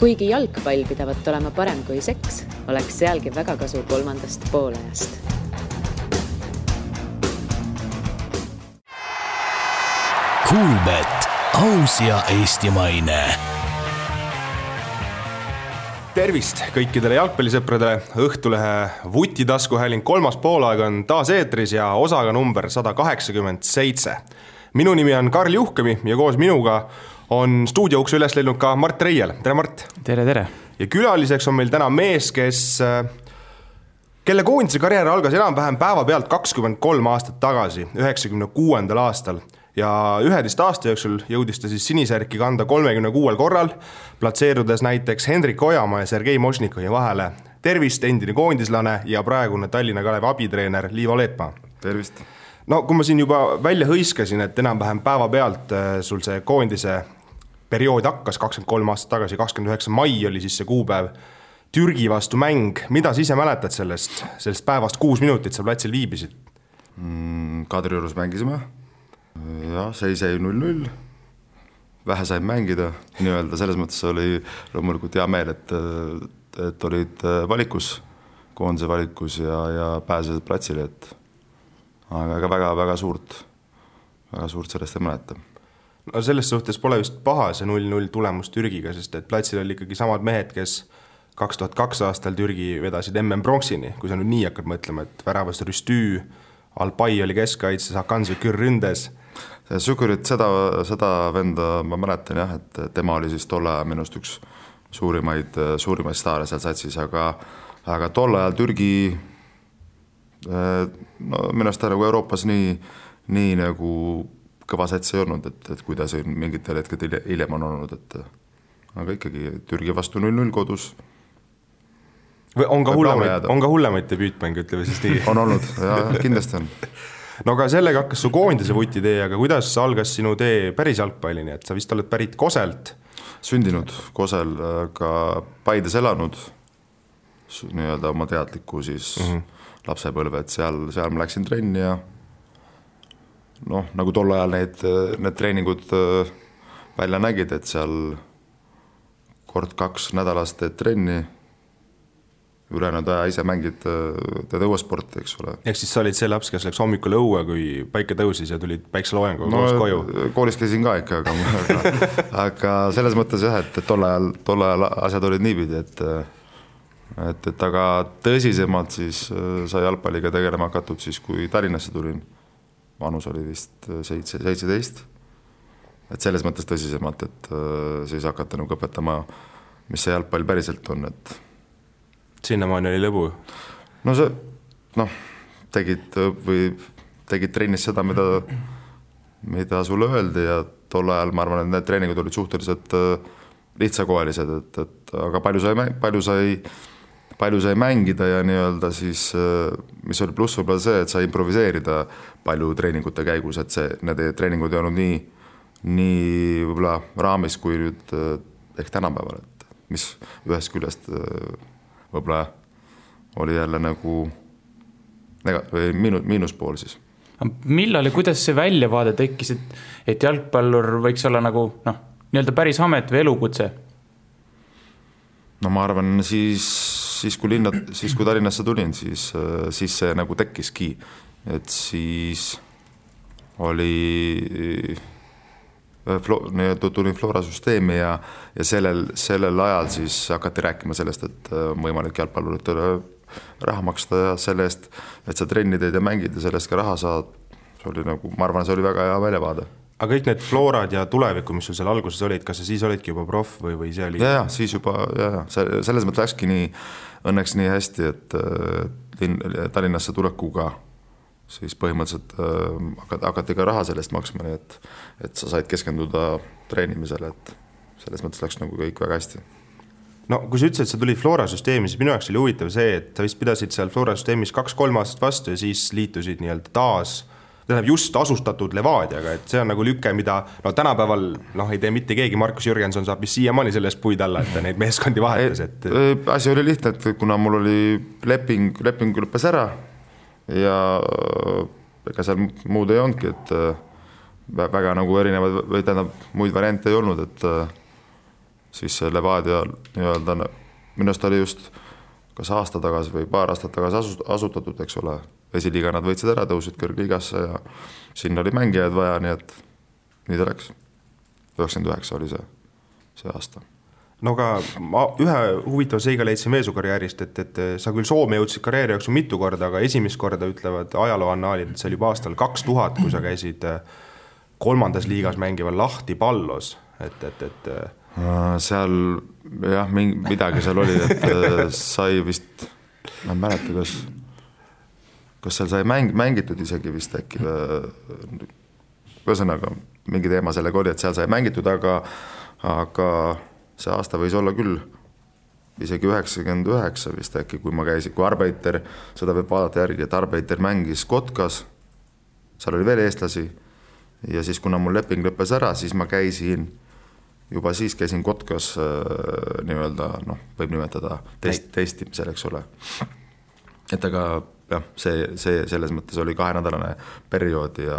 Kuigi jalgpall pidavat olema parem kui seks, oleks sealgi väga kasu kolmandast poolajast. Kuulbet, aus ja eestimaine. Tervist kõikidele jalgpallisõpradele. Õhtulehe Vutitaskuhääling kolmas poolaeg on taas eetris ja osaga number 187. Minu nimi on Karl Juhkemi ja koos minuga on stuudioukse üles leidnud ka Mart Reiel. Tere, Mart! Tere! Ja külaliseks on meil täna mees, kelle koondise karjäär algas enam-vähem päeva pealt 23 aastat tagasi, 96. aastal. Ja 11 aasta jooksul jõudis ta siis sinisärki kanda 36 korral, platseerudes näiteks Hendrik Ojamaa ja Sergei Mošnikovi vahele. Tervist, endine koondislane ja praegune Tallinna Kalevi abitreener Liivo Leetmaa. Tervist! No kui ma siin juba välja hõiskasin, et enam-vähem päeva pealt sul see koondise periood hakkas 23 aastat tagasi, 29. mai oli siis see kuupäev, Türgi vastu mäng. Mida sa ise mäletad sellest päevast 6 minutit sa platsil viibisid? Kadriorus mängisime. Ja, seis jäi 0-0. Vähe sain mängida. Nii-öelda selles mõttes oli loomulikult hea meel, et olid valikus, koondise valikus ja pääsesid platsile, aga väga suurt sellest ei mäleta. No selles suhtes pole vist paha see 0-0 tulemus Türgiga, sest et platsil oli ikkagi samad mehed, kes 2002 aastal Türgi vedasid MM Bronxini, kui sa nüüd nii hakkad mõtlema, et väravast Rüstü, Alpai oli keskkaitses, Hakan Sükur ründes. Sükurit seda venda ma mäletan jah, et tema oli siis tolle ajal minust üks suurimaid staare seal satsis, aga tolle ajal Türgi minust nagu Euroopas nii nagu kõva sats ei olnud, et kuidas mingitel hetked hiljem on olnud, aga ikkagi Türgi vastu 0-0 kodus. Või on ka hullemaid debüütmänge, ütleme siis nii? On olnud, ja kindlasti on. No aga sellega hakkas su koondise Vuti-tee, aga kuidas algas sinu tee päris jalgpallini, et sa vist oled pärit Koselt? Sündinud Kosel, ka Paides elanud, nii-öelda oma teadliku siis lapsepõlve, et seal ma läksin trenni ja nagu tol ajal need treeningud välja nägid, et seal kord 2 nädalast teed trenni, ülejäänud aja ise mängid teed õuesporti, eks ole. Ehk siis sa olid see laps, kes läks hommikul õue, kui päike tõusis ja tulid päikseloojangu koos koju? Koolis käisin ka ikka, aga selles mõttes jah, et tol ajal asjad olid niipidi, et aga tõsisemalt siis sai jalgpalliga tegelema hakatud siis, kui Tallinnasse tulin. Vanus oli vist 17. Et selles mõttes tõsisemalt, et siis hakata nagu õpetama, mis see jalgpall päriselt on. Sinnamaani oli lõbu? No see, tegid trennis seda, mida sulle öeldi ja tol ajal ma arvan, et need treeningud olid suhteliselt lihtsakoelised, aga palju sai mängida ja nii-öelda siis, mis oli pluss võib-olla see, et sai improviseerida palju treeningute käigus, et need treeningud ei olnud nii võib-olla raamis kui nüüd ehk tänapäeval, et mis ühest küljest võib-olla oli jälle nagu miinuspool siis. Millal ja kuidas see väljavaade tekkis, et jalgpallur võiks olla nagu nii-öelda päris amet või elukutse? No ma arvan, siis kui Tallinnasse tulin, siis see nagu tekkiski, et siis tulin Flora süsteemi ja sellel ajal siis hakati rääkima sellest, et võimalik jalgpalluritele raha maksta ja selle eest, et sa trenni teed ja mängid ja sellest ka raha saad. See oli nagu, ma arvan, see oli väga hea väljavaade. Aga kõik need Florad ja tuleviku, mis sul seal alguses olid, kas sa siis olidki juba proff või see oli? Ja, siis juba, selles mõttes läkski õnneks nii hästi, et Tallinnasse tulekuga siis põhimõtteliselt hakati ka raha sellest maksma, et sa said keskenduda treenimisele, et selles mõttes läks nagu kõik väga hästi. No kui sa ütlesid, et sa tulid Flora süsteemi, siis minu jaoks oli huvitav see, et sa vist pidasid seal Flora süsteemis 2-3 aastat vastu ja siis liitusid nii-öelda taas just asustatud Levadiaga, et see on nagu lüke, mida tänapäeval ei tee mitte keegi, Markus Jürgenson saab vist siiamaani sellest puid alla, et ta neid meeskondi vahetas. Asi oli lihtne, et kuna mul oli leping lõppes ära ja ega seal muud ei olnudki, et väga nagu erinevad või tähendab muid variante ei olnud, et siis see Levadia nii-öelda minust oli just kas aasta tagasi või paar aastat tagasi asutatud, eks ole. Esiliiga nad võitsid ära, tõusid kõrgliigasse ja sinna oli mängijaid vaja, nii et nii ta läks. 99 oli see aasta. No aga ma ühe huvitava seiga leidsin veel su karjäärist, et sa küll Soome jõudsid karjääri jooksul mitu korda, aga esimest korda ütlevad ajalooannaalid, et see oli juba aastal 2000, kui sa käisid 3. liigas mängival Lahti Pallos, et seal jah, midagi seal oli, et sai vist, ma ei mäleta, kas seal sai mängitud isegi vist äkki, ühesõnaga mingi teema sellega oli, et seal sai mängitud, aga see aasta võis olla küll isegi 99 vist äkki, kui ma käisin, kui Arbeiter, seda võib vaadata järgi, et Arbeiter mängis Kotkas, seal oli veel eestlasi ja siis kuna mul leping lõppes ära, siis ma käisin Kotkas nii-öelda, võib nimetada testimisel, eks ole. Et aga jah, see selles mõttes oli 2-nädalane periood ja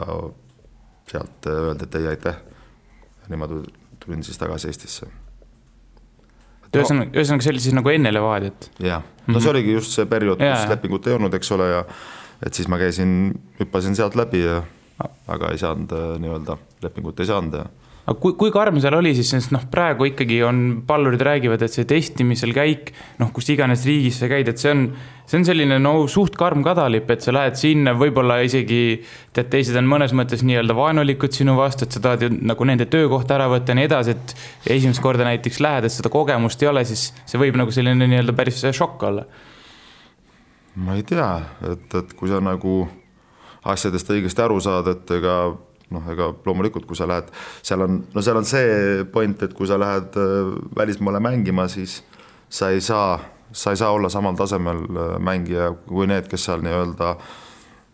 sealt öeldi, et ei aitäh. Niimoodi tulin siis tagasi Eestisse. Ühesõnaga see oli siis nagu enne Levadiat? Jah, see oligi just see periood, kus lepingut ei olnud, eks ole, ja et siis ma hüppasin sealt läbi, aga ei saanud nii-öelda, lepingut ei saanud ja aga kui karm seal oli siis, sest praegu ikkagi on pallurid räägivad, et see testimisel käik, kus iganes riigis sa käid, et see on selline suht karm kadalip, et sa lähed sinna, võib-olla isegi teised on mõnes mõttes nii-öelda vaenulikud sinu vastu, et sa tahad ju nagu nende töökohta ära võtta ja nii edasi, et esimest korda näiteks lähed, et seda kogemust ei ole, siis see võib nagu selline nii-öelda päris šokk olla. Ma ei tea, et kui sa nagu asjadest õigesti aru saad, et ega loomulikult, kui sa lähed, seal on see point, et kui sa lähed välismaale mängima, siis sa ei saa olla samal tasemel mängija kui need, kes seal nii-öelda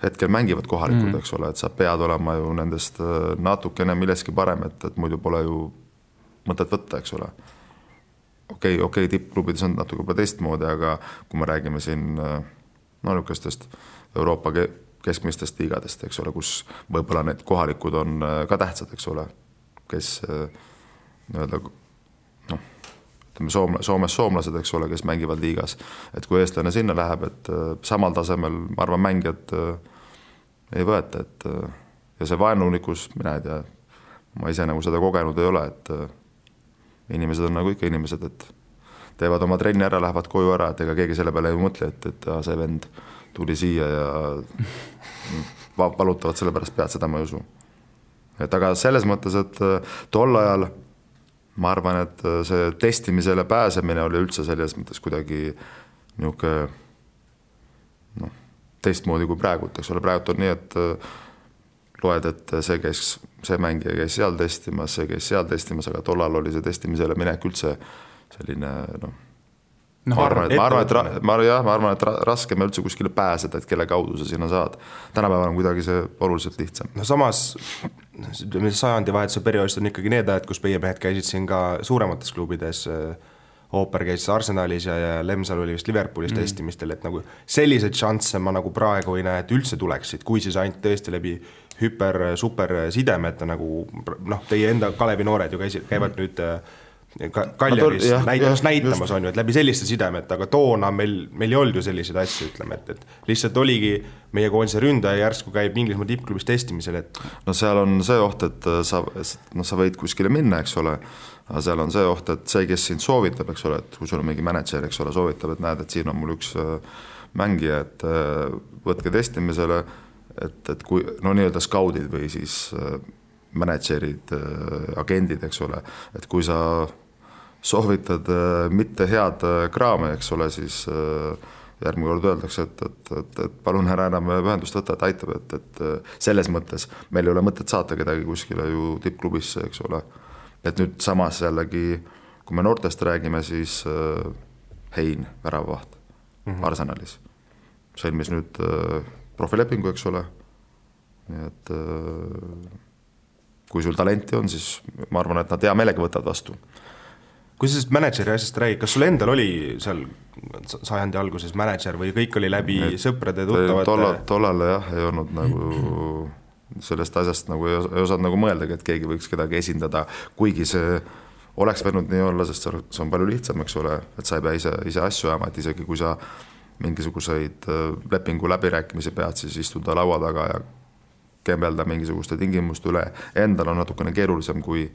hetkel mängivad kohalikud, eks ole, et sa pead olema ju nendest natukene milleski parem, et muidu pole ju mõtet võtta, eks ole. Okei, tippklubides on natuke teistmoodi, aga kui me räägime siin niisugustest Euroopa keskmistest liigadest, eks ole, kus võib-olla need kohalikud on ka tähtsad, eks ole, kes nii-öelda, Soomes soomlased, eks ole, kes mängivad liigas, et kui eestlane sinna läheb, et samal tasemel, ma arvan, mängijad ei võeta, et ja see vaenulikus, mina ei tea, ma ise nagu seda kogenud ei ole, et inimesed on nagu ikka inimesed, et teevad oma trenni ära, lähevad koju ära, et ega keegi selle peale ei mõtle, et see vend tuli siia ja valutavad selle pärast pead, seda ma ei usu. Et aga selles mõttes, et tol ajal ma arvan, et see testimisele pääsemine oli üldse selles mõttes kuidagi niuke teistmoodi kui praegu, eks ole, praegu on nii, et loed, et see mängija käis seal testimas, see käis seal testimas, aga tol ajal oli see testimisele minek üldse selline, ma arvan, et raskem üldse kuskile pääseda, et kelle kaudu sa sinna saad. Tänapäeval on kuidagi see oluliselt lihtsam. No samas, sajandi vahetuse perioodist on ikkagi need ajad, kus meie mehed käisid siin ka suuremates klubides, Ooper käis Arsenalis ja Lemsal oli vist Liverpoolis testimistel, et nagu selliseid šansse ma nagu praegu ei näe, et üldse tuleksid, kui siis ainult tõesti läbi super sidemete, nagu teie enda Kalevi noored ju käivad nüüd Kaljaris näitamas on ju, et läbi selliste sidemet, aga toona meil ei olnud ju selliseid asju, ütleme, et lihtsalt oligi meie koondise ründaja järsku käib Inglismaa tippklubis testimisel, et no seal on see oht, et sa võid kuskile minna, eks ole, aga seal on see oht, et see, kes sind soovitab, eks ole, et kui sul on mingi manager, eks ole, soovitab, et näed, et siin on mul üks mängija, et võtke testimisele, et kui nii-öelda skaudid või siis managerid, agendid, eks ole, et kui sa soovitad mitte head kraame, eks ole, siis järgmine kord öeldakse, et palun ära enam ühendust võtta, et aitab, et selles mõttes meil ei ole mõtet saata kedagi kuskile ju tippklubisse, eks ole. Et nüüd samas jällegi, kui me noortest räägime, siis Hein, väravavaht Arsenalis sõlmis nüüd profilepingu, eks ole. Nii et kui sul talenti on, siis ma arvan, et nad hea meelega võtavad vastu. Kui sa sellest manageri asjast räägid, kas sul endal oli seal sajandi alguses manager või kõik oli läbi sõprade tuttavate? Tollal jah, ei olnud nagu sellest asjast nagu ei osanud nagu mõeldagi, et keegi võiks kedagi esindada, kuigi see oleks võinud nii olla, sest see on palju lihtsam, eks ole, et sa ei pea ise asju ajama, et isegi kui sa mingisuguseid lepingu läbirääkimisi pead, siis istuda laua taga ja kembelda mingisuguste tingimuste üle. Endal on natukene keerulisem kui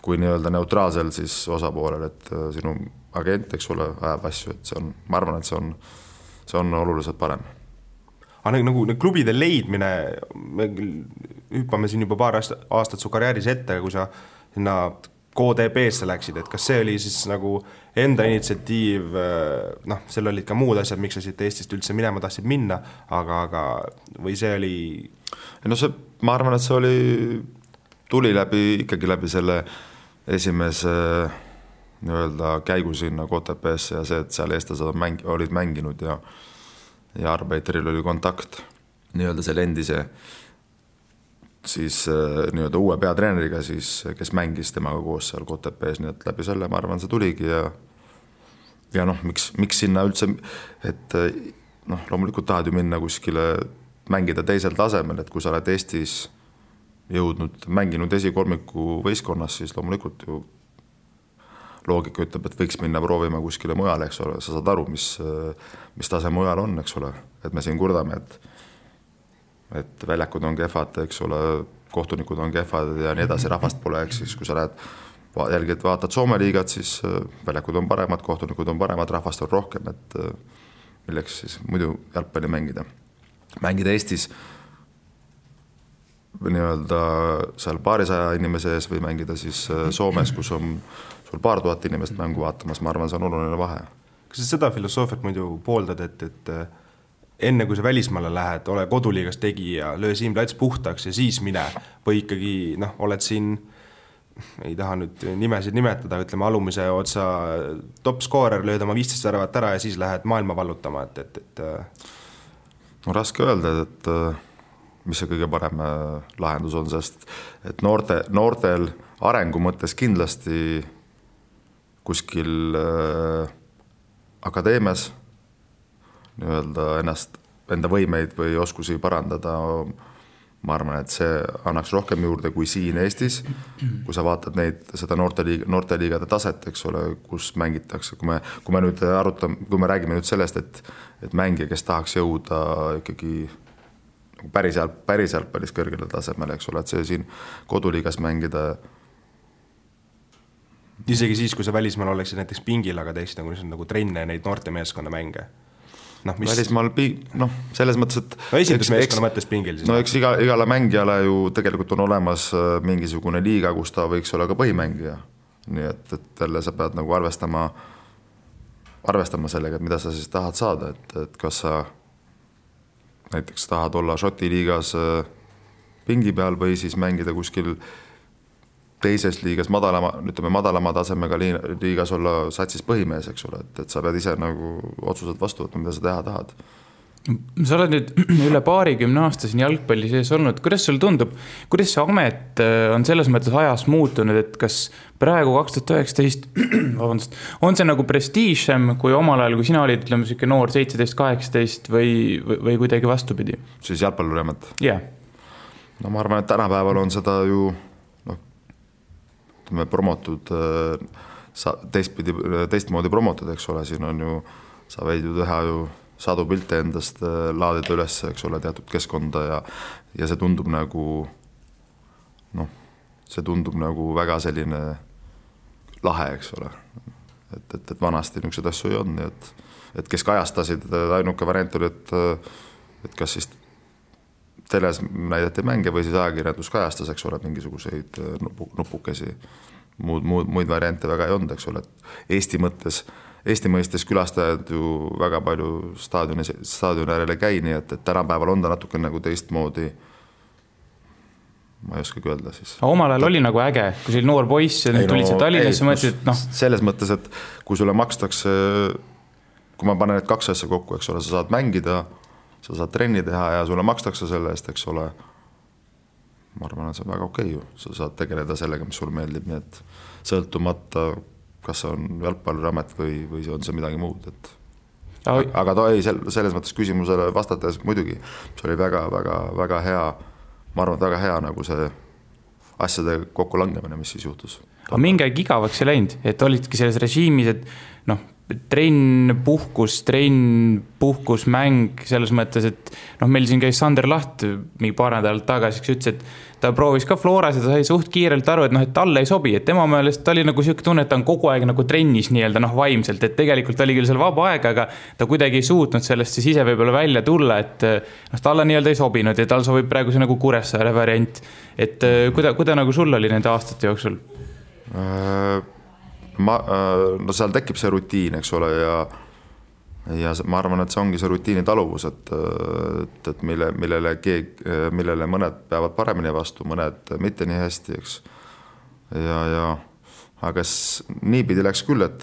nii-öelda neutraalsel siis osapoolel, et sinu agent, eks ole, ajab asju, et ma arvan, et see on oluliselt parem. Aga nagu klubide leidmine, me hüppame siin juba paar aastat su karjääris ette, kui sa sinna KDB-sse läksid, et kas see oli siis nagu enda initsiatiiv, seal olid ka muud asjad, miks sa siit Eestist üldse minema tahtsid minna, aga või see oli... No ma arvan, et see tuli ikkagi läbi selle esimese nii-öelda käigu sinna KTP-sse ja see, et seal eestlased olid mänginud ja Arbeiteril oli kontakt nii-öelda selle endise siis nii-öelda uue peatreeneriga, siis, kes mängis temaga koos seal KTP-s, nii et läbi selle, ma arvan, see tuligi ja miks sinna üldse, et loomulikult tahad ju minna kuskile mängida teisel tasemel, et kui sa oled Eestis mänginud esikolmiku võistkonnas, siis loomulikult ju loogika ütleb, et võiks minna proovima kuskile mujale, eks ole, sa saad aru, mis tase mujal on, eks ole, et me siin kurdame, et väljakud on kehvad, eks ole, kohtunikud on kehvad ja nii edasi, rahvast pole, eks siis kui sa lähed vaatad Soome liigat, siis väljakud on paremad, kohtunikud on paremad, rahvast on rohkem, et milleks siis muidu jalgpalli mängida Eestis nii-öelda seal paarisaja inimese ees või mängida siis Soomes, kus on sul paar tuhat inimest mängu vaatamas, ma arvan, see on oluline vahe. Kas sa seda filosoofiat muidu pooldad, et enne kui sa välismaale lähed, ole koduliigas tegija, löö siin plats puhtaks ja siis mine või ikkagi oled siin, ei taha nüüd nimesid nimetada, ütleme alumise otsa top skoorer, lööd oma 15 väravat ära ja siis lähed maailma vallutama, et... No raske öelda, et mis see kõige parem lahendus on, sest et noortel arengu mõttes kindlasti kuskil akadeemias nii-öelda enda võimeid või oskusi parandada, ma arvan, et see annaks rohkem juurde kui siin Eestis, kui sa vaatad seda noorteliigade taset, eks ole, kus mängitakse, kui me nüüd kui me räägime nüüd sellest, et mängija, kes tahaks jõuda ikkagi päris kõrgele tasemele, eks ole, et see siin koduliigas mängida. Isegi siis, kui sa välismaal oleksid näiteks pingil, aga teeksid nagu trenne neid noorte meeskonna mänge. Välismaal, selles mõttes, et... esindusmeeskonna mõttes pingil siis. Eks igale mängijale ju tegelikult on olemas mingisugune liiga, kus ta võiks olla ka põhimängija. Nii et jälle sa pead nagu arvestama sellega, et mida sa siis tahad saada, et kas sa näiteks tahad olla Šoti liigas pingi peal või siis mängida kuskil teises liigas madalama tasemega liigas olla satsis põhimees, eks ole, et sa pead ise nagu otsused vastu võtma, mida sa teha tahad. Sa oled nüüd üle 20 aasta siin jalgpalli sees olnud, kuidas sul tundub, kuidas see amet on selles mõttes ajas muutunud, et kas praegu 2019 on see nagu prestiižsem kui omal ajal, kui sina olid, ütleme, selline noor 17-18 või kuidagi vastupidi? Siis jalgpalluriamet? Jah. No ma arvan, et tänapäeval on seda ju promotud, teistmoodi promotud, eks ole, siin on ju, sa võid ju teha ju sadu pilte endast, laadida üles, eks ole, teatud keskkonda ja see tundub nagu väga selline lahe, eks ole, et vanasti niisugused asju ei olnud, et kes kajastasid, ainuke variant oli, et kas siis teles näidati mänge või siis ajakirjandus kajastas, eks ole, mingisuguseid nupukesi, muid variante väga ei olnud, eks ole, et Eesti mõistes külastajad ju väga palju staadioni äärele käi, nii et tänapäeval on ta natuke nagu teistmoodi, ma ei oskagi öelda siis. Omal ajal oli nagu äge, kui see oli noor poiss ja nüüd tulid see Tallinnasse, mõtlesid, et selles mõttes, et kui sulle makstakse, kui ma panen need kaks asja kokku, eks ole, sa saad mängida, sa saad trenni teha ja sulle makstakse selle eest, eks ole, ma arvan, et see on väga okei ju, sa saad tegeleda sellega, mis sulle meeldib, nii et sõltumata, kas see on jalgpalluriamet või on see midagi muud, et aga ta ei, selles mõttes küsimusele vastates muidugi, see oli väga hea, ma arvan, et väga hea nagu see asjade kokku langemine, mis siis juhtus. aga mingi aeg igavaks ei läinud, et olidki selles režiimis, et noh, trenn, puhkus, mäng, selles mõttes, et noh, meil siin käis Sander Laht mingi paar nädalat tagasi, kes ütles, et ta proovis ka Floras ja ta sai suht kiirelt aru, et noh, et talle ei sobi, et tema meelest ta oli nagu siuke tunne, et ta on kogu aeg nagu trennis nii-öelda noh, vaimselt, et tegelikult oli küll seal vaba aeg, aga ta kuidagi ei suutnud sellest siis ise võib-olla välja tulla, et noh, talle nii-öelda ei sobinud ja tal sobib praegu see nagu Kuressaare variant, et kuida nagu sul oli nende aastate jooksul? No seal tekib see rutiin, eks ole, ja ma arvan, et see ongi see rutiini taluvus, et millele mõned peavad paremini vastu, mõned mitte nii hästi, eks. Aga niipidi läks küll, et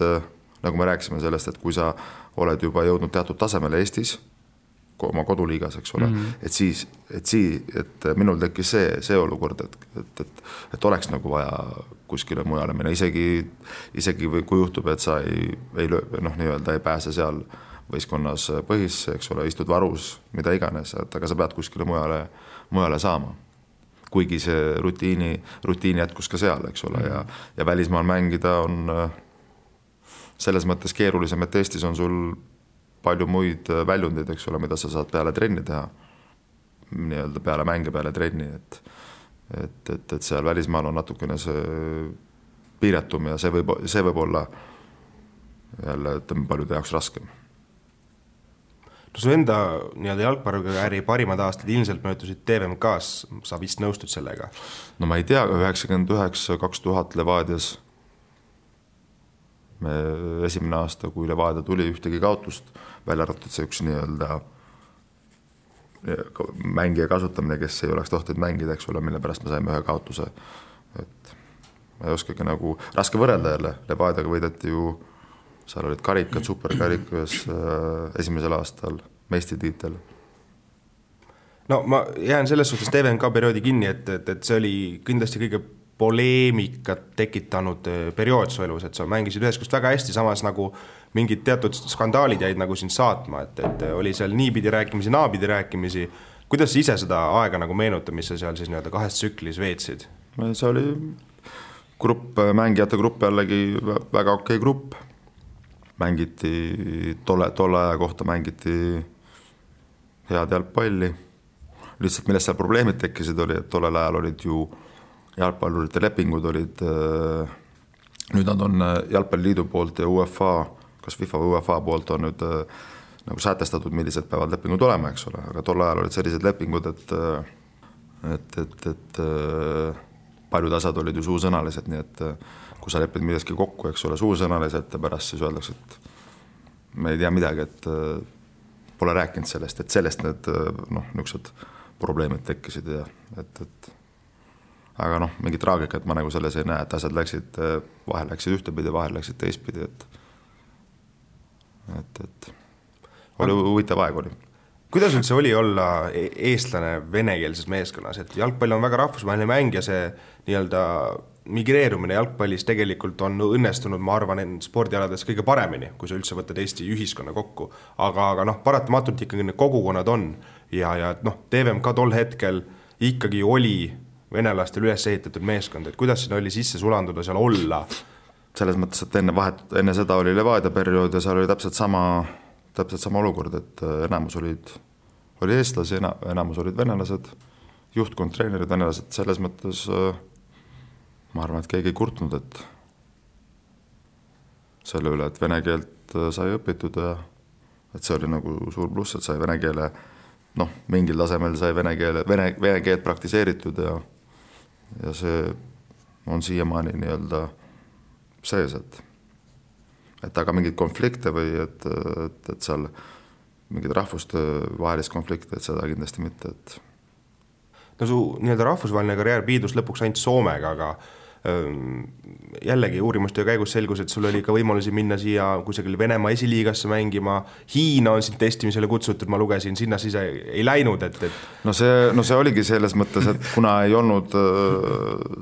nagu me rääkisime sellest, et kui sa oled juba jõudnud teatud tasemele Eestis, oma koduliigas, eks ole, et minul tekkis see olukord, et oleks nagu vaja kuskile mujale minna, isegi kui juhtub, et sa ei pääse seal võistkonnas põhisse, eks ole, istud varus, mida iganes, aga sa pead kuskile mujale saama. Kuigi see rutiini jätkus ka seal, eks ole, ja välismaal mängida on selles mõttes keerulisem, et Eestis on sul palju muid väljundeid, eks ole, mida sa saad peale trenni teha, nii-öelda peale mänge, peale trenni, et seal välismaal on natukene see piiratum ja see võib olla jälle, ütleme, paljude jaoks raskem. No su enda nii-öelda jalgpallikarjääri parimad aastad ilmselt möödusid TVMK-s, sa vist nõustud sellega? No ma ei tea, 99-2000 Levadias me esimene aasta, kui Levadia tuli, ühtegi kaotust, välja arvatud see üks nii-öelda mängija kasutamine, kes ei oleks tohtinud mängida, eks ole, mille pärast me saime ühe kaotuse. Et ma ei oskagi nagu raske võrrelda jälle, Levadiaga võideti ju, seal olid karikad, superkarikas esimesel aastal, meistritiitel. No ma jään selles suhtes TVMK perioodi kinni, et see oli kindlasti kõige poleemikat tekitanud periood su elus, et sa mängisid ühes kust väga hästi, samas nagu mingid teatud skandaalid jäid nagu sind saatma, et oli seal niipidi rääkimisi, naapidi rääkimisi. Kuidas sa ise seda aega nagu meenuta, mis sa seal siis nii-öelda kahes tsüklis veetsid? See oli mängijate grupp jällegi väga okei grupp. Mängiti tolle aja kohta mängiti head jalgpalli. Lihtsalt millest seal probleemid tekkisid oli, et tollel ajal olid ju jalgpallurite lepingud olid, nüüd nad on Jalgpalliliidu poolt ja UEFA, kas FIFA või UEFA poolt on nüüd nagu sätestatud, millised peavad lepingud olema, eks ole, aga tol ajal olid sellised lepingud, et paljud asjad olid ju suusõnalised, nii et kui sa lepid midagi kokku, eks ole, suusõnaliselt ja pärast siis öeldakse, et me ei tea midagi, et pole rääkinud sellest, et sellest need niisugused probleemid tekkisid ja aga mingi traagikat ma nagu selles ei näe, et asjad vahel läksid ühtepidi, vahel läksid teistpidi, et oli huvitav aeg oli. Kuidas üldse oli olla eestlane venekeelses meeskonnas, et jalgpall on väga rahvusvaheline mäng ja see nii-öelda migreerumine jalgpallis tegelikult on õnnestunud, ma arvan, spordialades kõige paremini, kui sa üldse võtad Eesti ühiskonna kokku, aga paratamatult ikkagi need kogukonnad on ja TVMK tol hetkel ikkagi oli venelastel üles ehitatud meeskond, et kuidas siin oli sisse sulanduda seal olla? Selles mõttes, et enne seda oli Levadia periood ja seal oli täpselt sama olukord, et enamus oli eestlasi, enamus olid venelased, juhtkond, treenerid, venelased, selles mõttes ma arvan, et keegi ei kurtnud, et selle üle, et vene keelt sai õpitud ja et see oli nagu suur pluss, et sai vene keele, mingil tasemel sai vene keelt praktiseeritud ja see on siiamaani nii-öelda sees, et aga mingid konflikte või et seal mingid rahvuste vahelist konflikte, et seda kindlasti mitte, et no su nii-öelda rahvusvaheline karjäär piidus lõpuks ainult Soomega, aga jällegi uurimuste käigus selgus, et sul oli ka võimalusi minna siia kusagil Venemaa esiliigasse mängima, Hiina on siin testimisele kutsutud, ma lugesin, sinna siis ei läinud, et No see oligi selles mõttes, et kuna ei olnud,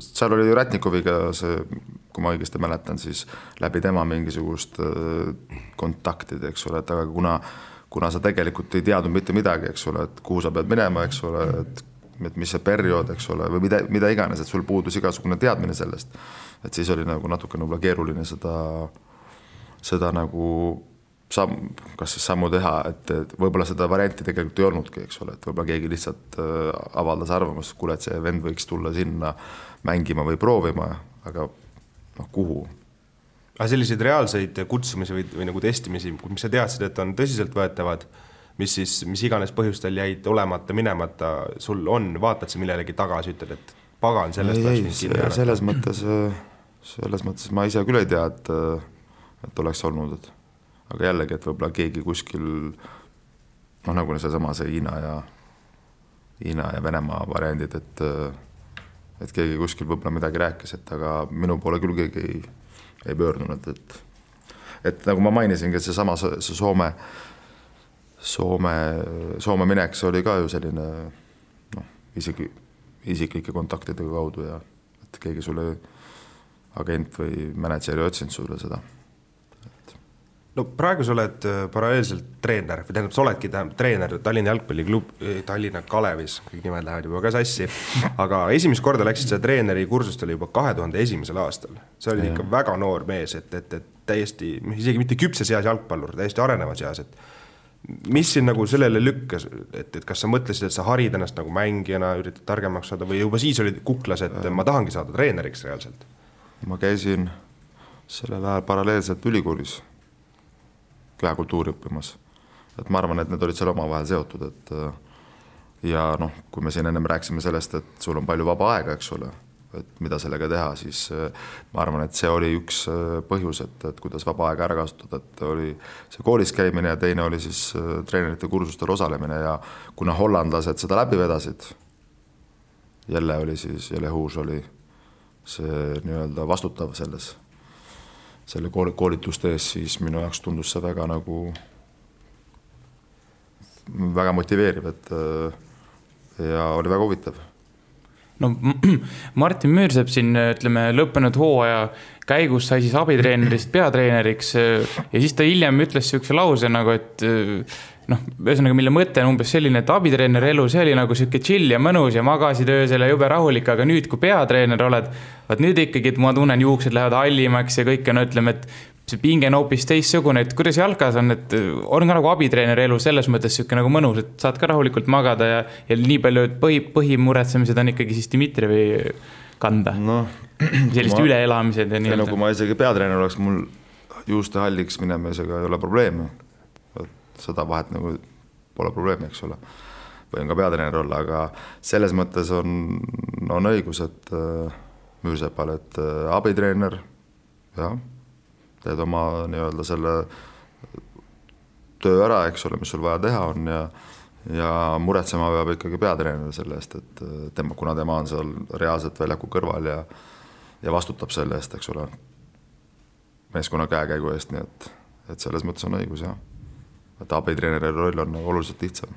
seal oli ju Rätnikoviga see, kui ma õigesti mäletan, siis läbi tema mingisugust kontaktid, eks ole, et aga kuna sa tegelikult ei teadnud mitte midagi, eks ole, et kuhu sa pead minema, eks ole, et et mis see periood, eks ole, või mida iganes, et sul puudus igasugune teadmine sellest, et siis oli nagu natuke võib-olla keeruline seda nagu kas siis sammu teha, et võib-olla seda varianti tegelikult ei olnudki, eks ole, et võib-olla keegi lihtsalt avaldas arvamust, kuule, et see vend võiks tulla sinna mängima või proovima, aga kuhu? Aga selliseid reaalseid kutsumisi või nagu testimisi, mis sa teadsid, et on tõsiselt võetavad, mis iganes põhjustel jäid olemata, minemata, sul on, vaatad sa millelegi tagasi, ütled, et pagan sellest selles mõttes ma ise küll ei tea, et oleks olnud, aga jällegi, et võib-olla keegi kuskil nagu see Hiina ja Venemaa variandid, et keegi kuskil võib-olla midagi rääkis, et aga minu poole küll keegi ei pöördunud, et nagu ma mainisingi, et see Soome minek, see oli ka ju selline isiklike kontaktide kaudu ja et keegi sulle agent või mänedžer ei otsinud sulle seda. No praegu sa oled paralleelselt treener, või tähendab, sa oledki treener Tallinna jalgpalliklub, Tallinna Kalevis, kõik nimed lähevad juba ka sassi, aga esimest korda läksid sa treeneri kursust oli juba 2001. aastal. See oli ikka väga noor mees, et täiesti, isegi mitte küpses eas jalgpallur, täiesti arenevas eas, et mis siin nagu sellele lükkas, et kas sa mõtlesid, et sa harid ennast nagu mängijana, üritad targemaks saada või juba siis olid kuklas, et ma tahangi saada treeneriks reaalselt? Ma käisin sellel ajal paralleelselt ülikoolis käekultuuri õppimas. Et ma arvan, et need olid seal omavahel seotud, ja kui me siin ennem rääksime sellest, et sul on palju vaba aega, eks ole, et mida sellega teha, siis ma arvan, et see oli üks põhjus, et kuidas vaba aega ära kasutada, et oli see koolis käimine ja teine oli siis treenerite kursustel osalemine ja kuna hollandlased seda läbi vedasid, jälle Huus oli see nii-öelda vastutav selle koolituste ees, siis minu jaoks tundus see väga väga motiveeriv, ja oli väga huvitav. No Martin Müürsepp siin, ütleme, lõppenud hooaja käigus sai siis abitreenerist peatreeneriks ja siis ta hiljem ütles siukse lause nagu, et ühesõnaga, mille mõte on umbes selline, et abitreeneri elu, see oli nagu siuke chill ja mõnus ja magasid öösel ja jube rahulik, aga nüüd, kui peatreener oled, vaat nüüd ikkagi, et ma tunnen, juuksed lähevad hallimaks ja kõik on, ütleme, et see pinge on hoopis teistsugune, et kuidas jalkas on, et on ka nagu abitreeneri elu selles mõttes siuke nagu mõnus, et saad ka rahulikult magada ja nii palju, et põhimuretsemised on ikkagi siis Dmitrijevi kanda. Sellist üleelamised ja nii. Kui ma isegi peatreener oleks, mul juuste halliks minemisega ei ole probleemi. Seda vahet nagu pole probleemi, eks ole. Võin ka peatreener olla, aga selles mõttes on õigus, et Müürsepal, et abitreener, jah, teed oma nii-öelda selle töö ära, eks ole, mis sul vaja teha on ja muretsema peab ikkagi peatreener selle eest, et kuna tema on seal reaalselt väljaku kõrval ja vastutab selle eest, eks ole, meeskonna käekäigu eest, nii et selles mõttes on õigus, jah. Et abitreeneri roll on oluliselt lihtsam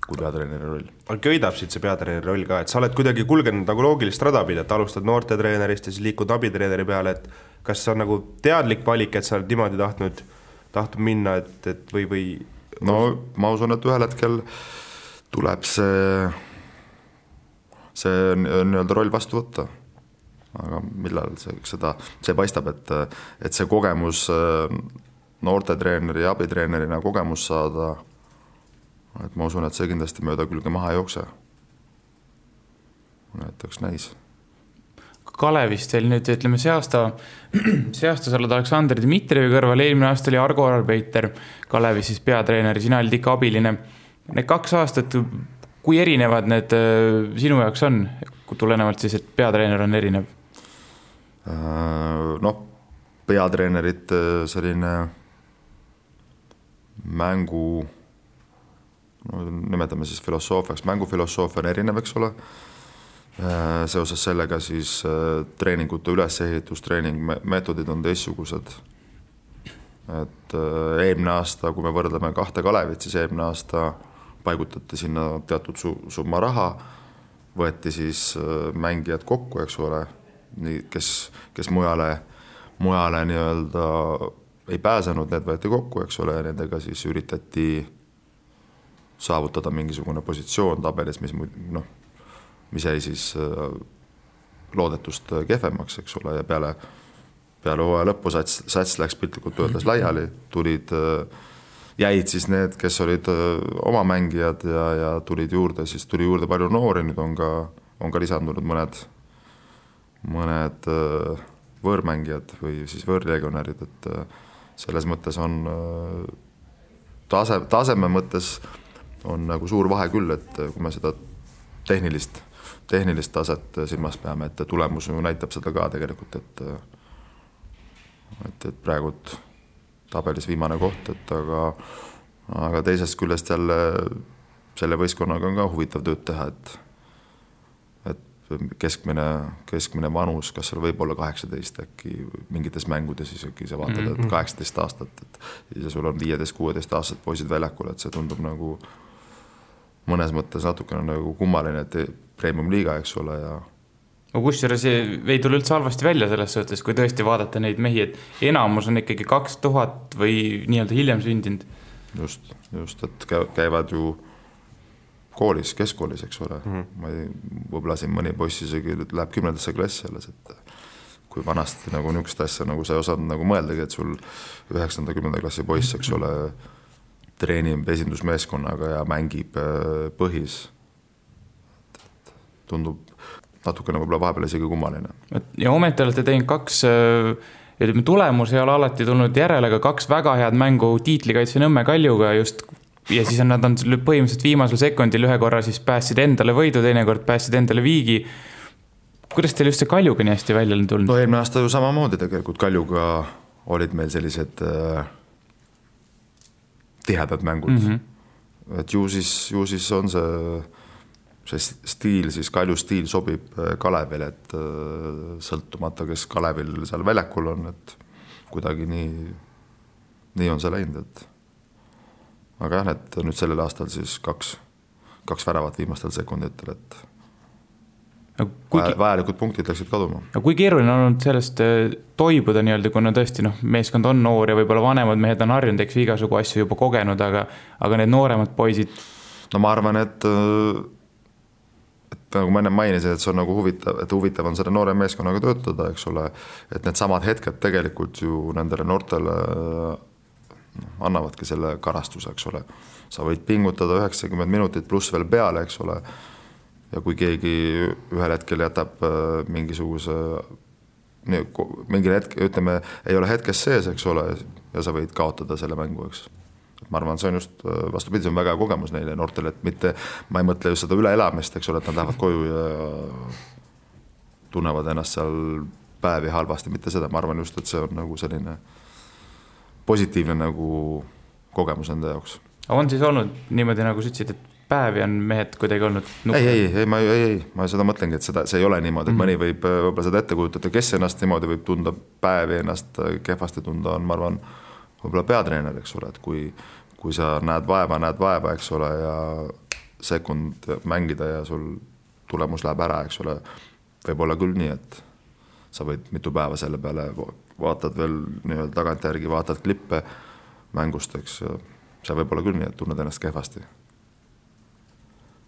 kui peatreeneri roll. Köidab siit see peatreeneri roll ka, et sa oled kuidagi kulgenud nagu loogilist rada pida, et alustad noorte treenerist ja siis liikud abitreeneri peale, et kas see on nagu teadlik valik, et sa oled niimoodi tahtnud minna, et või? No ma usun, et ühel hetkel tuleb see nii-öelda roll vastu võtta. Aga millal see paistab, et see kogemus noorte treeneri ja abitreenerina kogemus saada, et ma usun, et see kindlasti mööda külge maha ei jookse. Näiteks näis. Kalevist veel nüüd, ütleme, see aasta sa oled Aleksandr Dmitrijevi kõrval, eelmine aasta oli Argo Arbeiter Kalevis siis peatreeneri, sina olid ikka abiline. Need 2 aastat, kui erinevad need sinu jaoks on, tulenevalt siis, et peatreener on erinev? Peatreenerit selline mängu, nimetame siis filosoofiaks, mängufilosoofia on erinev, eks ole. Seoses sellega siis treeningute ülesehitus, treeningmeetodid on teistsugused. Et eelmine aasta, kui me võrdleme 2 Kalevit, siis eelmine aasta paigutati sinna teatud summa raha, võeti siis mängijad kokku, eks ole, kes mujale nii-öelda ei pääsenud, need võeti kokku, eks ole, ja nendega siis üritati saavutada mingisugune positsioon tabelis, mis jäi siis loodetust kehvemaks, eks ole, ja peale hooaja lõppu sats läks piltlikult öeldes laiali, jäid siis need, kes olid oma mängijad ja tuli juurde palju noori, nüüd on ka lisandunud mõned võõrmängijad või siis võõrlegionärid, et selles mõttes on taseme mõttes on nagu suur vahe küll, et kui me seda tehnilist taset silmas peame, et tulemus näitab seda ka tegelikult, et praegu tabelis viimane koht, et aga teisest küljest jälle selle võistkonnaga on ka huvitav tööd teha, et keskmine vanus, kas seal võib olla 18 äkki mingites mängudes isegi sa vaatad, et 18 aastat, ja sul on 15-16 aastased poisid väljakul, et see tundub nagu mõnes mõttes natukene nagu kummaline, et premium-liiga, eks ole, ja kusjuures ei tule üldse halvasti välja selles suhtes, kui tõesti vaadata neid mehi, et enamus on ikkagi 2000 või nii-öelda hiljem sündinud. Just, et käivad ju koolis, keskkoolis, eks ole. Ma võib-olla siin mõni poiss isegi läheb 10. klassi alles, et kui vanasti nagu niisugust asja nagu sa ei osanud nagu mõeldagi, et sul 9.-10. klassi poiss, eks ole, treenib esindusmeeskonnaga ja mängib põhis. Tundub natukene võib-olla vahepeal isegi kummaline. Ja ometi olete teinud 2, tulemus ei ole alati tulnud järele, aga 2 väga head mängu tiitlikaitse Nõmme Kaljuga just, ja siis nad on põhimõtteliselt viimasel sekundil ühe korra siis päästsid endale võidu, teine kord päästsid endale viigi. Kuidas teil just see Kaljuga nii hästi välja on tulnud? No eelmine aasta ju samamoodi tegelikult Kaljuga olid meil sellised tihedad mängud. Et ju siis on see stiil, siis Kalju stiil sobib Kalevil, et sõltumata, kes Kalevil seal väljakul on, et kuidagi nii on see läinud, et aga jah, et nüüd sellel aastal siis 2 väravat viimastel sekunditel, et vajalikud punktid läksid kaduma. Aga kui keeruline on olnud sellest toibuda nii-öelda, kuna tõesti meeskond on noor ja võib-olla vanemad mehed on harjunud, eks igasugu asju juba kogenud, aga need nooremad poisid? No ma arvan, et nagu ma enne mainisin, et see on nagu huvitav on selle noore meeskonnaga töötada, eks ole, et need samad hetked tegelikult ju nendele noortele annavadki selle karastuse, eks ole. Sa võid pingutada 90 minutit pluss veel peale, eks ole, ja kui keegi ühel hetkel jätab mingi hetk, ütleme, ei ole hetkes sees, eks ole, ja sa võid kaotada selle mängu, eks. Ma arvan, see on just vastupidi, see on väga kogemus neile noortele, et mitte, ma ei mõtle just seda üleelamist, eks ole, et nad lähevad koju ja tunnevad ennast seal päevi halvasti, mitte seda, ma arvan just, et see on nagu selline positiivne nagu kogemus enda jaoks. On siis olnud niimoodi, nagu sa ütlesid, et päevi on mehed kuidagi olnud Ei, ma seda mõtlengi, et see ei ole niimoodi, et mõni võib võib-olla seda ette kujutada, kes ennast niimoodi võib tunda päevi, ennast kehvasti tunda on, ma arvan, võib-olla peatreener, eks ole, et kui sa näed vaeva, eks ole, ja sekund mängida ja sul tulemus läheb ära, eks ole, võib olla küll nii, et sa võid mitu päeva selle peale, vaatad veel nii-öelda tagantjärgi, vaatad klippe mängust, eks, see võib olla küll nii, et tunned ennast kehvasti.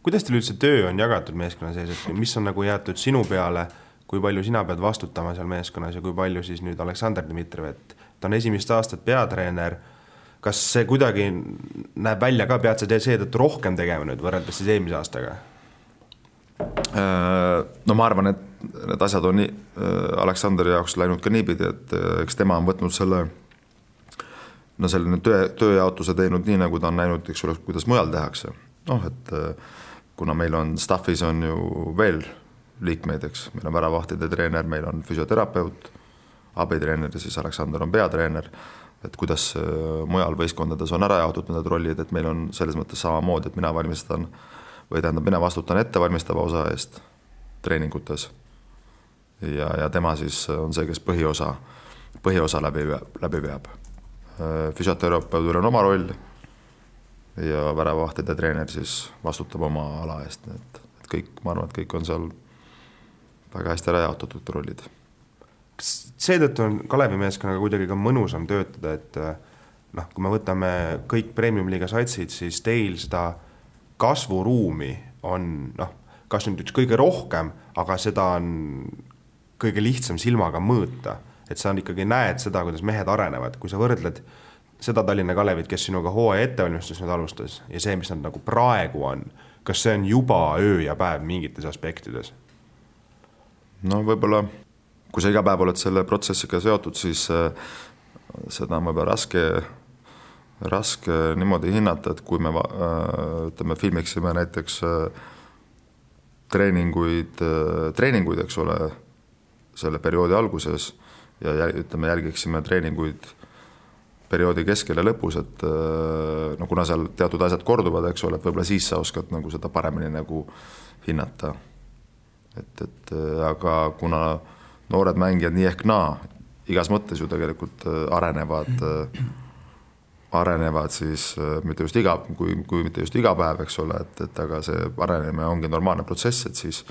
Kuidas teil üldse töö on jagatud meeskonna sees, et mis on nagu jäetud sinu peale, kui palju sina pead vastutama seal meeskonnas ja kui palju siis nüüd Aleksandr Dmitrijev, et ta on esimest aastat peatreener, kas see kuidagi näeb välja ka, pead sa seetõttu rohkem tegema nüüd võrreldes siis eelmise aastaga? No ma arvan, et need asjad on Aleksandri jaoks läinud ka niipidi, et eks tema on võtnud selline tööjaotuse teinud nii, nagu ta on näinud, eks ole, kuidas mujal tehakse. Et kuna meil on staffis on ju veel liikmeid, eks, meil on väravahtide treener, meil on füsioterapeut, abitreener ja siis Aleksandr on peatreener, et kuidas mujal võistkondades on ära jaotud need rollid, et meil on selles mõttes samamoodi, et mina vastutan ettevalmistava osa eest treeningutes ja tema siis on see, kes põhiosa läbi veab. Füsioterapeudil on oma roll ja väravahtide treener siis vastutab oma ala eest, et kõik, ma arvan, et kõik on seal väga hästi ära jaotatud rollid. Seetõttu on Kalevi meeskonnaga kuidagi ka mõnusam töötada, et kui me võtame kõik premium-liiga satsid, siis teil seda kasvuruumi on kas nüüd üks kõige rohkem, aga seda on kõige lihtsam silmaga mõõta, et sa ikkagi näed seda, kuidas mehed arenevad, kui sa võrdled seda Tallinna Kalevit, kes sinuga hooaja ettevalmistus nüüd alustas ja see, mis nad nagu praegu on, kas see on juba öö ja päev mingites aspektides? No võib-olla, kui sa iga päev oled selle protsessiga seotud, siis seda on võib-olla raske niimoodi hinnata, et kui me ütleme, filmiksime näiteks treeninguid, eks ole, selle perioodi alguses ja ütleme, jälgiksime treeninguid perioodi keskel ja lõpus, et no kuna seal teatud asjad korduvad, eks ole, et võib-olla siis sa oskad nagu seda paremini nagu hinnata. Et aga kuna noored mängijad nii ehk naa, igas mõttes ju tegelikult arenevad siis mitte just kui mitte just iga päev, eks ole, et aga see arenemine ongi normaalne protsess, et siis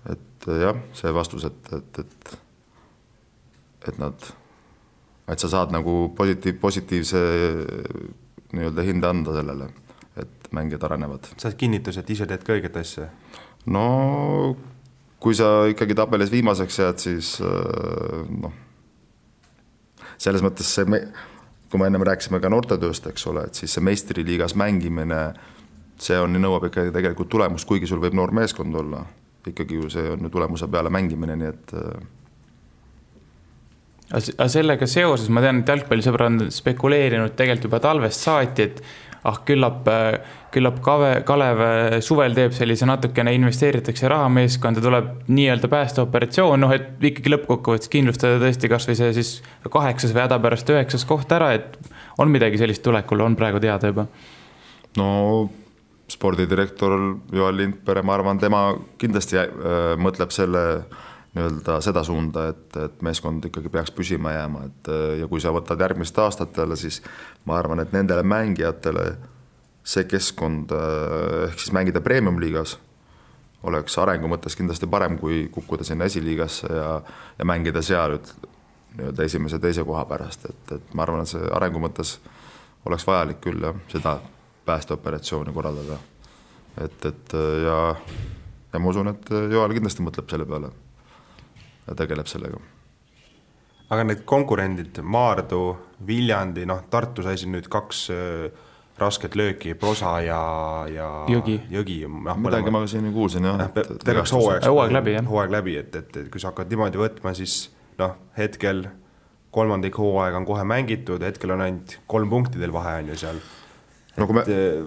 et jah, see vastus, et sa saad nagu positiivse nii-öelda hinde anda sellele, et mängijad arenevad. Saad kinnitus, et ise teed ka õiget asja? No kui sa ikkagi tabelis viimaseks jääd, siis selles mõttes kui me ennem rääkisime ka noortetööst, eks ole, et siis see meistriliigas mängimine, see nõuab ikkagi tegelikult tulemust, kuigi sul võib noor meeskond olla. Ikkagi ju see on ju tulemuse peale mängimine, nii et Aga sellega seoses ma tean, et jalgpallisõbra on spekuleerinud tegelikult juba talvest saati, et küllap Kalev suvel teeb sellise natukene investeeritakse rahameeskonda, tuleb nii-öelda päästeoperatsioon, et ikkagi lõppkokkuvõttes kindlustada tõesti kas või see siis 8. või häda pärast 9. koht ära, et on midagi sellist tulekul, on praegu teada juba? No spordidirektor Joel Lindpere, ma arvan, tema kindlasti mõtleb seda suunda, et meeskond ikkagi peaks püsima jääma, ja kui sa võtad järgmist aastatele, siis ma arvan, et nendele mängijatele see keskkond ehk siis mängida premium-liigas oleks arengu mõttes kindlasti parem, kui kukkuda sinna esiliigasse ja mängida seal nii-öelda esimese teise koha pärast, et ma arvan, et see arengu mõttes oleks vajalik küll seda päästeoperatsiooni korraldada, ja ma usun, et Joel kindlasti mõtleb selle peale ja tegeleb sellega. Aga need konkurendid, Maardu, Viljandi, Tartu sai siin nüüd 2 rasket lööki, Prosa ja Jõgi. Midagi ma siin kuulsin, jah. Terveks hooaeg läbi, et kui sa hakkad niimoodi võtma, siis hetkel 3. hooaeg on kohe mängitud, hetkel on ainult 3 punktidel vahe on ju seal.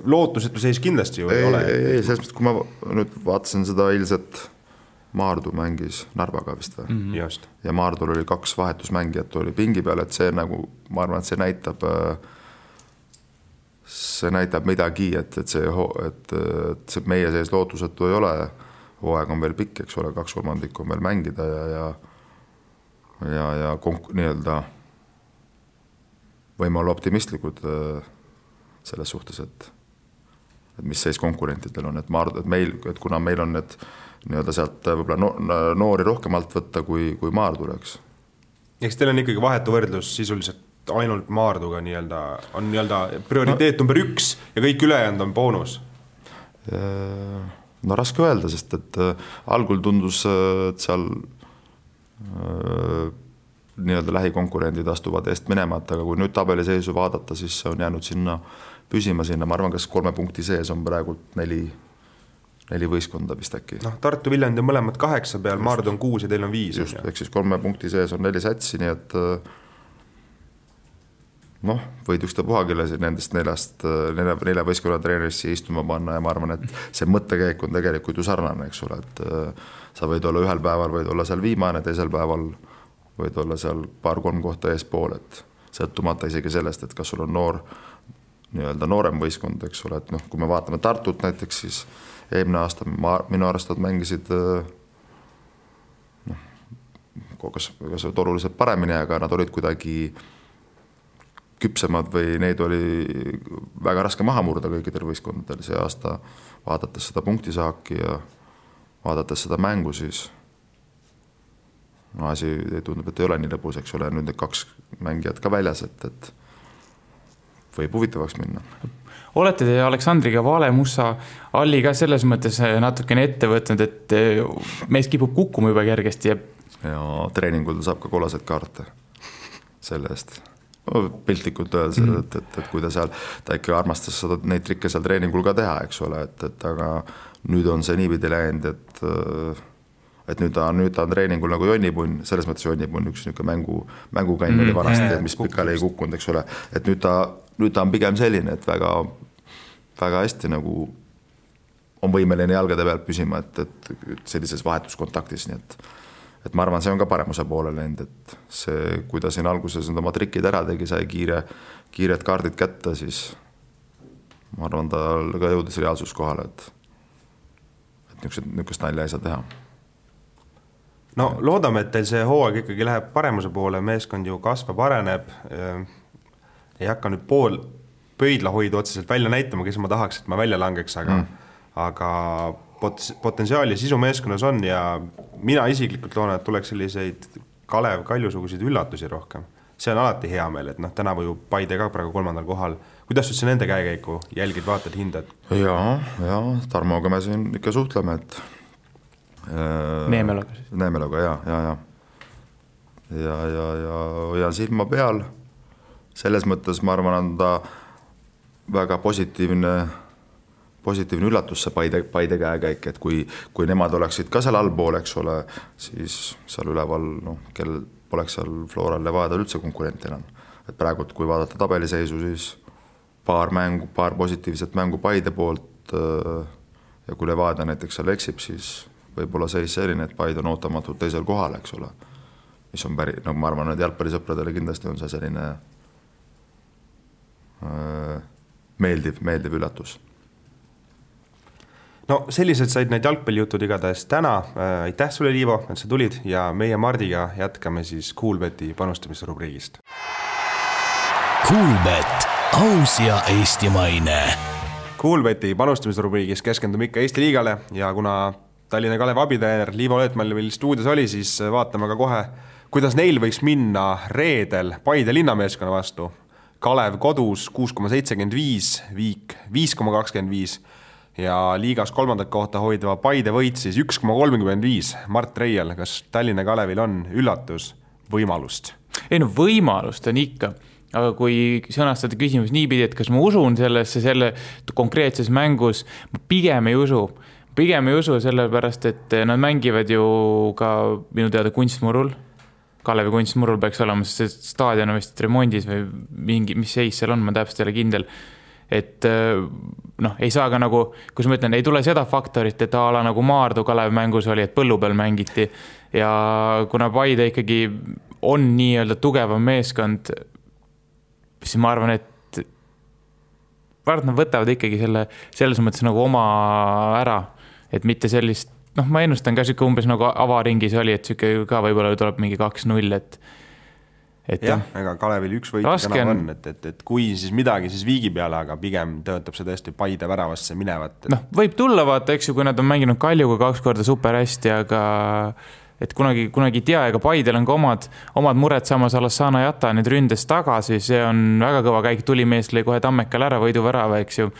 Lootusetu seis kindlasti ju ei ole. Ei, selles mõttes, kui ma nüüd vaatasin seda eilset Maardu mängis Narvaga vist või? Just. Ja Maardul oli 2 vahetusmängijat oli pingi peal, et see nagu, ma arvan, et see näitab midagi, et see meie sees lootusetu ei ole, hooaeg on veel pikk, eks ole, 2/3 on veel mängida ja nii-öelda võime olla optimistlikud selles suhtes, et mis seis konkurentidel on, et kuna meil on need nii-öelda sealt võib-olla noori rohkemalt võtta kui Maardu oleks. Eks teil on ikkagi vahetu võrdlus sisuliselt ainult Maarduga on prioriteet number 1 ja kõik ülejäänud on boonus? No raske öelda, sest et algul tundus, et seal nii-öelda lähikonkurendid astuvad eest minema, aga kui nüüd tabeliseisu vaadata, siis on jäänud püsima sinna, ma arvan, kas 3 punkti sees on praegult 4 võistkonda vist äkki. Tartu, Viljandi on mõlemad 8 peal, Maardu on 6 ja teil on 5. Just, ehk siis 3 punkti sees on 4 sätsi, nii et võid üksta puhagile nendest 4 võistkonna treenerisse istuma panna ja ma arvan, et see mõttekäik on tegelikult ju sarnane, eks ole, et sa võid olla ühel päeval, võid olla seal viimane, teisel päeval võid olla seal 2-3 kohta eespool, et sõltumata isegi sellest, et kas sul on nii-öelda noorem võistkond, eks ole, et kui me vaatame Tartut näiteks, siis eelmine aasta minu arvestad mängisid kas oluliselt paremini, aga nad olid kuidagi küpsemad või neid oli väga raske maha murda kõikidel võistkondadel see aasta, vaadates seda punktisaaki ja vaadates seda mängu, siis asi tundub, et ei ole nii lõbus, eks ole, nüüd need 2 mängijat ka väljas, et võib huvitavaks minna. Olete te Aleksandriga Vale-Mussa alli ka selles mõttes natukene ette võtnud, et mees kipub kukkuma juba kergesti ja treeningul saab ka kollaseid kaarte selle eest. Piltlikult öeldes, et kui ta ikka armastas neid trikke seal treeningul ka teha, eks ole, et aga nüüd on see niipidi läinud, et nüüd ta on treeningul nagu jonnipunn, selles mõttes jonnipunn, üks mängukann oli vanasti, mis pikali ei kukkunud, eks ole, et nüüd ta on pigem selline, et väga, väga hästi nagu on võimeline jalgade pealt püsima, et sellises vahetuskontaktis, nii et ma arvan, see on ka paremuse poole läinud, et see, kui ta siin alguses oma trikid ära tegi, sai kiired kaardid kätte, siis ma arvan, ta ka jõudis reaalsus kohale, et niisugust nalja ei saa teha. No loodame, et teil see hooaeg ikkagi läheb paremuse poole, meeskond ju kasvab, areneb, ei hakka nüüd pool pöidla hoidu otseselt välja näitama, kes ma tahaks, et ma välja langeks, aga potentsiaali sisu meeskonnas on ja mina isiklikult loodan, et tuleks selliseid Kalev Kaljusuguseid üllatusi rohkem. See on alati hea meel, et tänavu ju Paide ka praegu 3. kohal. Kuidas üldse nende käekäiku jälgid, vaatad, hindad? Ja Tarmoga me siin ikka suhtleme, et Neemeloga siis. Neemeloga, ja hoian silma peal. Selles mõttes ma arvan, on ta väga positiivne üllatus see Paide käekäik, et kui nemad oleksid ka seal allpool, eks ole, siis seal üleval, kel poleks seal Floral Levadial üldse konkurent enam. Et praegu, kui vaadata tabeliseisu, siis paar positiivset mängu Paide poolt ja kui Levadia näiteks seal eksib, siis võib-olla seis selline, et Paide on ootamatult teisel kohal, eks ole. Mis on ma arvan, et jalgpallisõpradele kindlasti on see selline meeldiv üllatus. No sellised said need jalgpallijutud igatahes täna. Aitäh sulle, Liivo, et sa tulid ja meie Mardiga jätkame siis Coolbeti panustamisrubriigist. Coolbet, aus ja eestimaine. Coolbeti panustamisrubriigis keskendume ikka Eesti liigale ja kuna Tallinna Kalev abitreener Liivo Löötmäel meil stuudios oli, siis vaatame ka kohe, kuidas neil võiks minna reedel Paide linnameeskonna vastu. Kalev kodus 6,75, Viik 5,25 ja liigas 3. kohta hoidva Paide võit siis 1,35. Mart Reiel, kas Tallinna Kalevil on üllatus võimalust? Ei võimalust on ikka, aga kui sõnastada küsimus niipidi, et kas ma usun selle konkreetses mängus, ma pigem ei usu sellepärast, et nad mängivad ju ka minu teada kunstmurul. Kalevi kunstmurul peaks olema, sest staadion on vist remondis või mis seis seal on, ma täpselt ei ole kindel. Et ei saa ka nagu, kus ma ütlen, ei tule seda faktorit, et ala nagu Maardu Kalev mängus oli, et põllu peal mängiti ja kuna Paide ikkagi on nii-öelda tugevam meeskond, siis ma arvan, et nad võtavad ikkagi selles mõttes nagu oma ära, et mitte sellist, ma ennustan ka siuke umbes nagu avaringis oli, et siuke ka võib-olla tuleb mingi 2-0, et jah, ega Kalevil üks võit täna on, et kui siis midagi, siis Viigi peale, aga pigem töötab see tõesti Paide väravasse minevat. Võib tulla vaata, eks ju, kui nad on mänginud Kaljuga 2 korda super hästi, aga et kunagi ei tea, ega Paidel on ka omad mured, samas Alassana Jata nüüd ründes tagasi, see on väga kõva käik, tulimees lõi kohe Tammekal ära võidu värava, eks ju,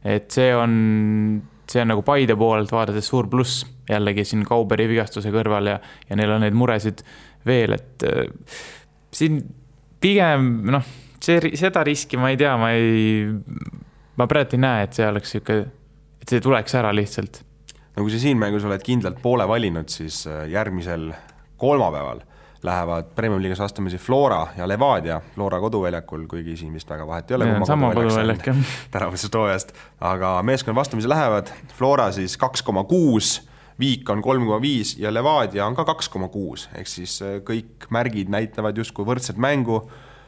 et see on nagu Paide poolelt vaadates suur pluss jällegi siin Kauberi vigastuse kõrval ja neil on neid muresid veel, et siin pigem, seda riski ma ei tea, ma praegu ei näe, et see oleks siuke, et see tuleks ära lihtsalt. No kui sa siin mängus oled kindlalt poole valinud, siis järgmisel kolmapäeval lähevad Premium Liigas vastamisi Flora ja Levadia Flora koduväljakul, kuigi siin vist väga vahet ei ole. Sama koduväljak, jah. Tänavusest hooajast, aga meeskond vastamisi lähevad. Flora siis 2,6, Viik on 3,5 ja Levadia on ka 2,6. Ehk siis kõik märgid näitavad justkui võrdset mängu.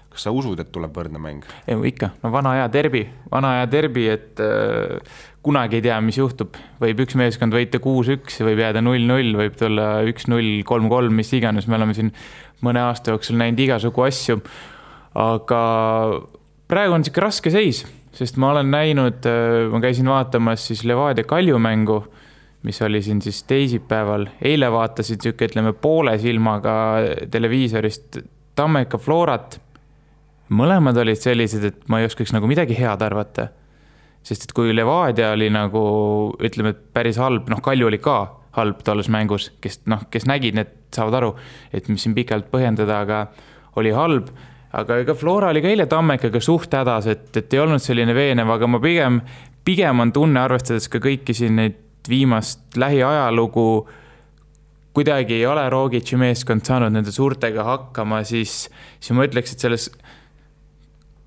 Kas sa usud, et tuleb võrdne mäng? Ikka, vana aja derbi, et kunagi ei tea, mis juhtub. Võib üks meeskond võita 6-1, võib jääda 0-0, võib tulla 1-0, 3-3, mis iganes. Me oleme siin mõne aasta jooksul näinud igasugu asju. Aga praegu on siuke raske seis, sest ma olen näinud, ma käisin vaatamas siis Levadia Kaljumängu, mis oli siin siis teisipäeval. Eile vaatasid siuke, ütleme, poole silmaga televiisorist Tammeka Florat. mõlemad olid sellised, et ma ei oskaks nagu midagi head arvata. Sest et kui Levadia oli nagu, ütleme, et päris halb, Kalju oli ka halb tolles mängus, kes nägid, need saavad aru, et mis siin pikalt põhjendada, aga oli halb. Aga ega Flora oli ka eile Tammekaga suht hädas, et ei olnud selline veenev, aga ma pigem on tunne, arvestades ka kõiki siin neid viimast lähiajalugu, kuidagi ei ole Rogici meeskond saanud nende suurtega hakkama, siis ma ütleks, et selles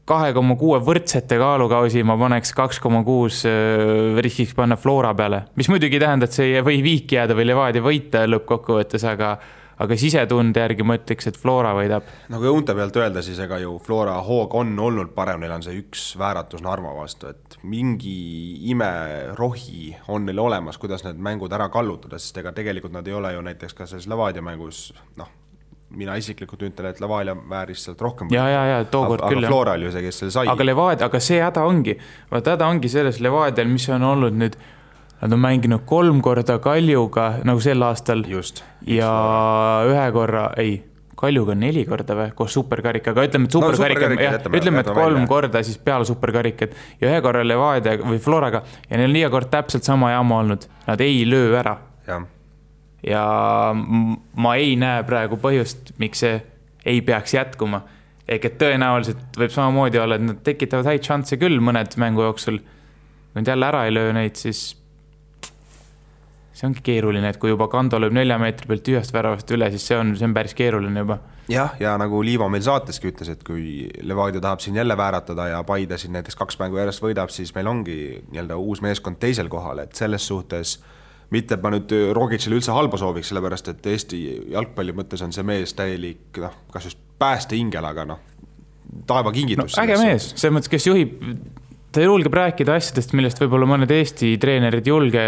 2,6 võrdsete kaalukausi ma paneks 2,6 riskiks panna Flora peale, mis muidugi tähendab, et see ei või viiki jääda või Levadia võita lõppkokkuvõttes, aga sisetunde järgi ma ütleks, et Flora võidab. Nagu õunte pealt öelda, siis ega ju Flora hoog on olnud parem, neil on see üks vääratus Narva vastu, et mingi imerohi on neil olemas, kuidas need mängud ära kallutada, sest ega tegelikult nad ei ole ju näiteks ka selles Levadia mängus, mina isiklikult ütlen, et Levadia vääris sealt rohkem. Ja, tookord küll. Aga Flora oli ju see, kes selle sai. Aga see häda ongi selles Levadial, mis on olnud nüüd. Nad on mänginud 3 korda Kaljuga, nagu sel aastal. Just. Ja Kaljuga 4 korda või, koos superkarikaga. Ütleme, et ütleme, et 3 korda siis peale superkarikat ja 1 korra Levadia või Floraga ja neil on iga kord täpselt sama jama olnud. Nad ei löö ära. Ja ma ei näe praegu põhjust, miks see ei peaks jätkuma. Ehk et tõenäoliselt võib samamoodi olla, et nad tekitavad häid šansse küll mõned mängu jooksul. Kui nad jälle ära ei löö neid, siis see ongi keeruline, et kui juba Kando lööb 4 meetri pealt ühest väravast üle, siis see on päris keeruline juba. Ja nagu Liivo meil saateski ütles, et kui Levadia tahab siin jälle vääratada ja Paide siin näiteks 2 mängu järjest võidab, siis meil ongi uus meeskond teisel kohal, et selles suhtes mitte ma nüüd Rogicile üldse halba sooviks, sellepärast et Eesti jalgpalli mõttes on see mees täielik, kas just pääste ingel, aga taeva kingitus. Äge mees, see mõttes, kes juhib, ta julgeb rääkida asjadest, millest võib-olla mõned Eesti treenerid julge,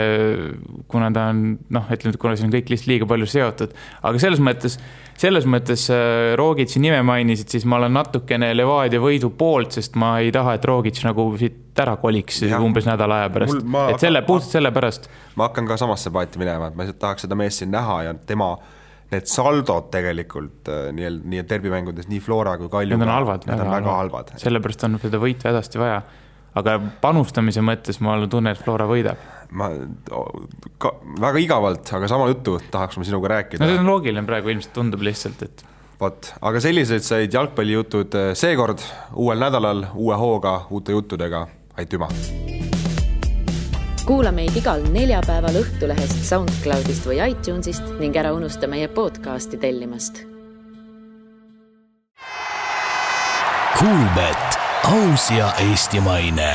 kuna ta on, kuna see on kõik lihtsalt liiga palju seotud. Aga selles mõttes Rogici nime mainisid, siis ma olen natukene Levadia võidu poolt, sest ma ei taha, et Rogic nagu siit ära koliks umbes nädala aja pärast. Puhtalt selle pärast. Ma hakkan ka samasse paati minema, et ma tahaks seda meest siin näha ja tema need saldod tegelikult nii derbimängudes, nii Flora kui Kalju. Need on halvad. Need on väga halvad. Sellepärast on seda võitu hädasti vaja. Aga panustamise mõttes ma tunnen, et Flora võidab. Väga igavalt, aga sama juttu tahaks ma sinuga rääkida. See on loogiline praegu, ilmselt tundub lihtsalt, et... Aga sellised said jalgpallijutud seekord, uuel nädalal, uue hooga, uute juttudega. Aitüma! Kuula meid igal neljapäeval Õhtulehest, SoundCloudist või iTunesist ning ära unusta meie podcasti tellimast. Kuulbet, aus ja eestimaine.